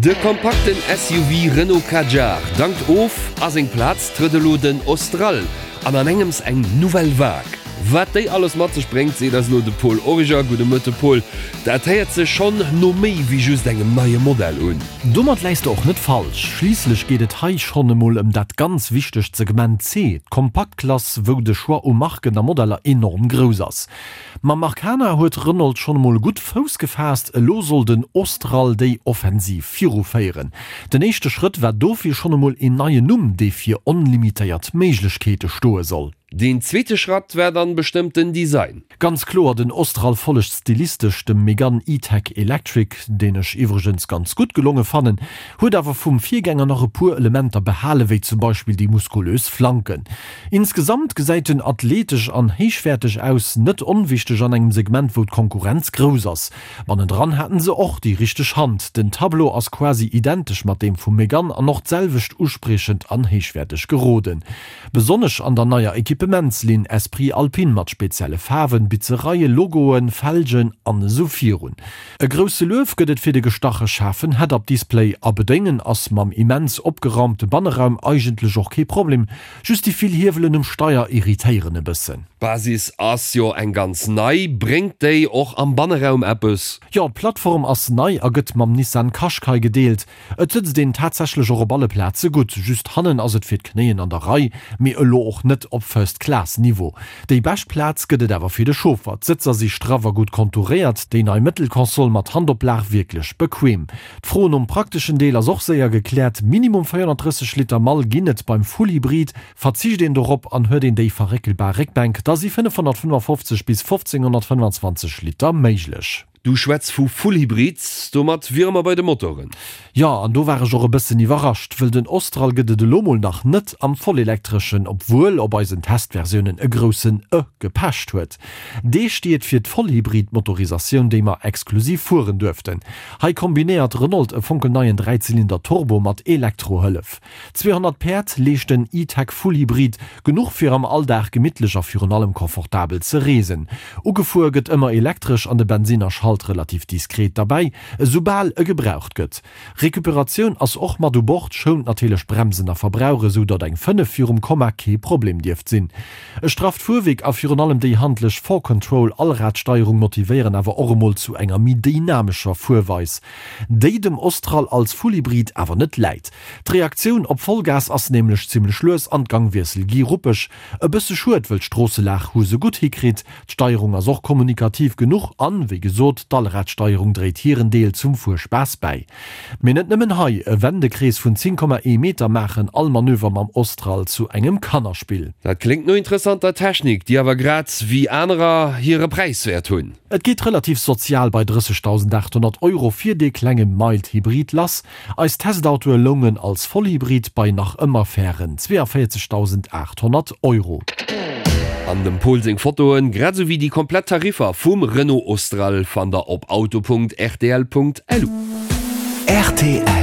De kompakten SUV Renault Kadjar dankt of, a seng Plaz trëtt elo den Austral an an engems eng Nouvelle Vague. Wat déi alles mat sech bréngt, seet eis elo de Paul Origer. Gudde Mëtte Paul, dat héiert sech schonn no méi wéi just engem neie Modell un. Domat läis de och net falsch. Schliisslech geet et hei schonn emol ëm dat ganz wichtegt Segment C, d'Kompaktklass, wou de Choix u Marken a Modeller enorm grouss ass. Mam Arkana huet Renault schonn emol gutt Fouss gefaasst, elo soll den Austral déi Offensiv viruféieren. Den éischte Schrëtt war dofir schonn emol een neien Numm, dee fir onlimitéiert Méiglechkeete stoe soll. Deen zweete Schratt war dann bestëmmt den Design. Ganz kloer, den Austral follegt stilistesch dem Megane E-Tech Electric, deen ech iwwregens ganz gutt gelonge fannen, huet awer vum Virgänger nach e puer Elementer behale wéi zum Beispill déi muskulös Flanken. Insgesamt gesäit en athletesch an héichwäerteg aus, net onwichteg an engem Segment wou d'Konkurrenz grouss ass. Bannendran haten se och déi richteg Hand, den Tableau ass quasi identesch mat deem vum Megane an och d'selwecht uspriechend an héichwäerteg geroden. Besonnesch an der neier Equipementslinn Esprit Alpine mat spezielle Faarwen, Bitzereien, Logoen, Felgen an esou virun. E grousse Luef gëtt et fir de gestache schaarfen Head-Up-Display a bedéngen ass mam immens opgeraumte Banneraum eigentlech och kee Problem, just déi vill Hiewelen um Steier irritéieren e bëssen. D'Basis ass jo eng ganz nei, bréngt déi och am Banneraum eppes? Jo, d'Plattform ass nei a gëtt mam Nissan Qashqai gedeelt. Et sëtzt een tatsächlech och op alle Plaze gutt, just hannen ass et fir d'Knéien an der Rei, mee elo och net op First Class Niveau. Déi bescht Plaz gëtt et awer fir de Chauffer, d'Sëtzer si straff a gutt kontouréiert, déi nei Mëttelkonsol mat Handoplag wierklech bequem. D'Fro nom prakteschen Deel ass och séier gekläert, Minimum 430 Liter Mall ginn et beim Full Hybrid, verzicht een dorop an huet een déi verréckelbar Réckbänk, da si 555 bis 1525 Liter méiglech. Du schwätz vu Full-Hybrid, domat wiere mer bei de Motoren. Jo, an do war ech och e bëssen iwwerrascht, wëll den Austral gëtt et elo mol nach net am Vollelektreschen, obwuel op eisen Testversiounen e groussen E gepecht huet. Dee steet fir d'Vollhybrid-Motorisatioun, déi mer exklusiv fueren duerften. Hei kombinéiert Renault e fonkelneien Dräizylinder-Turbo mat Elektrohëllef. 200 Päerd leescht den E-Tech Full Hybrid, genuch fir am Alldag gemittlech a virun allem confortabel ze reesen. Ugefuer gëtt ëmmer elektresch an de Bensinner schalt relativ diskret derbäi, esoubal e gebraucht gëtt. Recuperatioun ass och mat u Bord, schount natierlech Bremsen a Verbrauch, esou datt eng 5 virum Komma kee Problem dierft sinn. E strafft Fuerwierk a virun allem déi handlech 4Control Allradsteierung motivéieren awer och emol zu enger méi dynamescher Fuerweis, déi dem Austral als Fullhybrid awer net läit. D'Reaktioun op Vollgas ass nämlech zimmlech lues an d'Gangwiessel gi ruppeg. E bësse schued, wëll d'Stroosselag hu se gutt hikritt. D'Steierung ass och kommunikativ genuch an, wéi gesot, d'Allradsteierung dréit hiren Deel zum Fuerspaass bäi. Mee net nëmmen hei, e Wendekrees vun 10,1 Meter maachen all Manöver mam Austral zu engem Kannerspill. Dat kléngt no interessanter Technik, déi awer grad wéi anerer hire Präis wäert hunn. Et geet relativ sozial bei 30.800 Euro fir dee klenge Mild Hybrid lass. Eis Testautoe loungen als Vollhybrid bei nach ëmmer fairen 42.800 Euro. An dem Pol seng Fotoen, grad esou wéi déi komplett Tariffer vum Renault Austral fannt der op auto.rtl.lu. Rtl.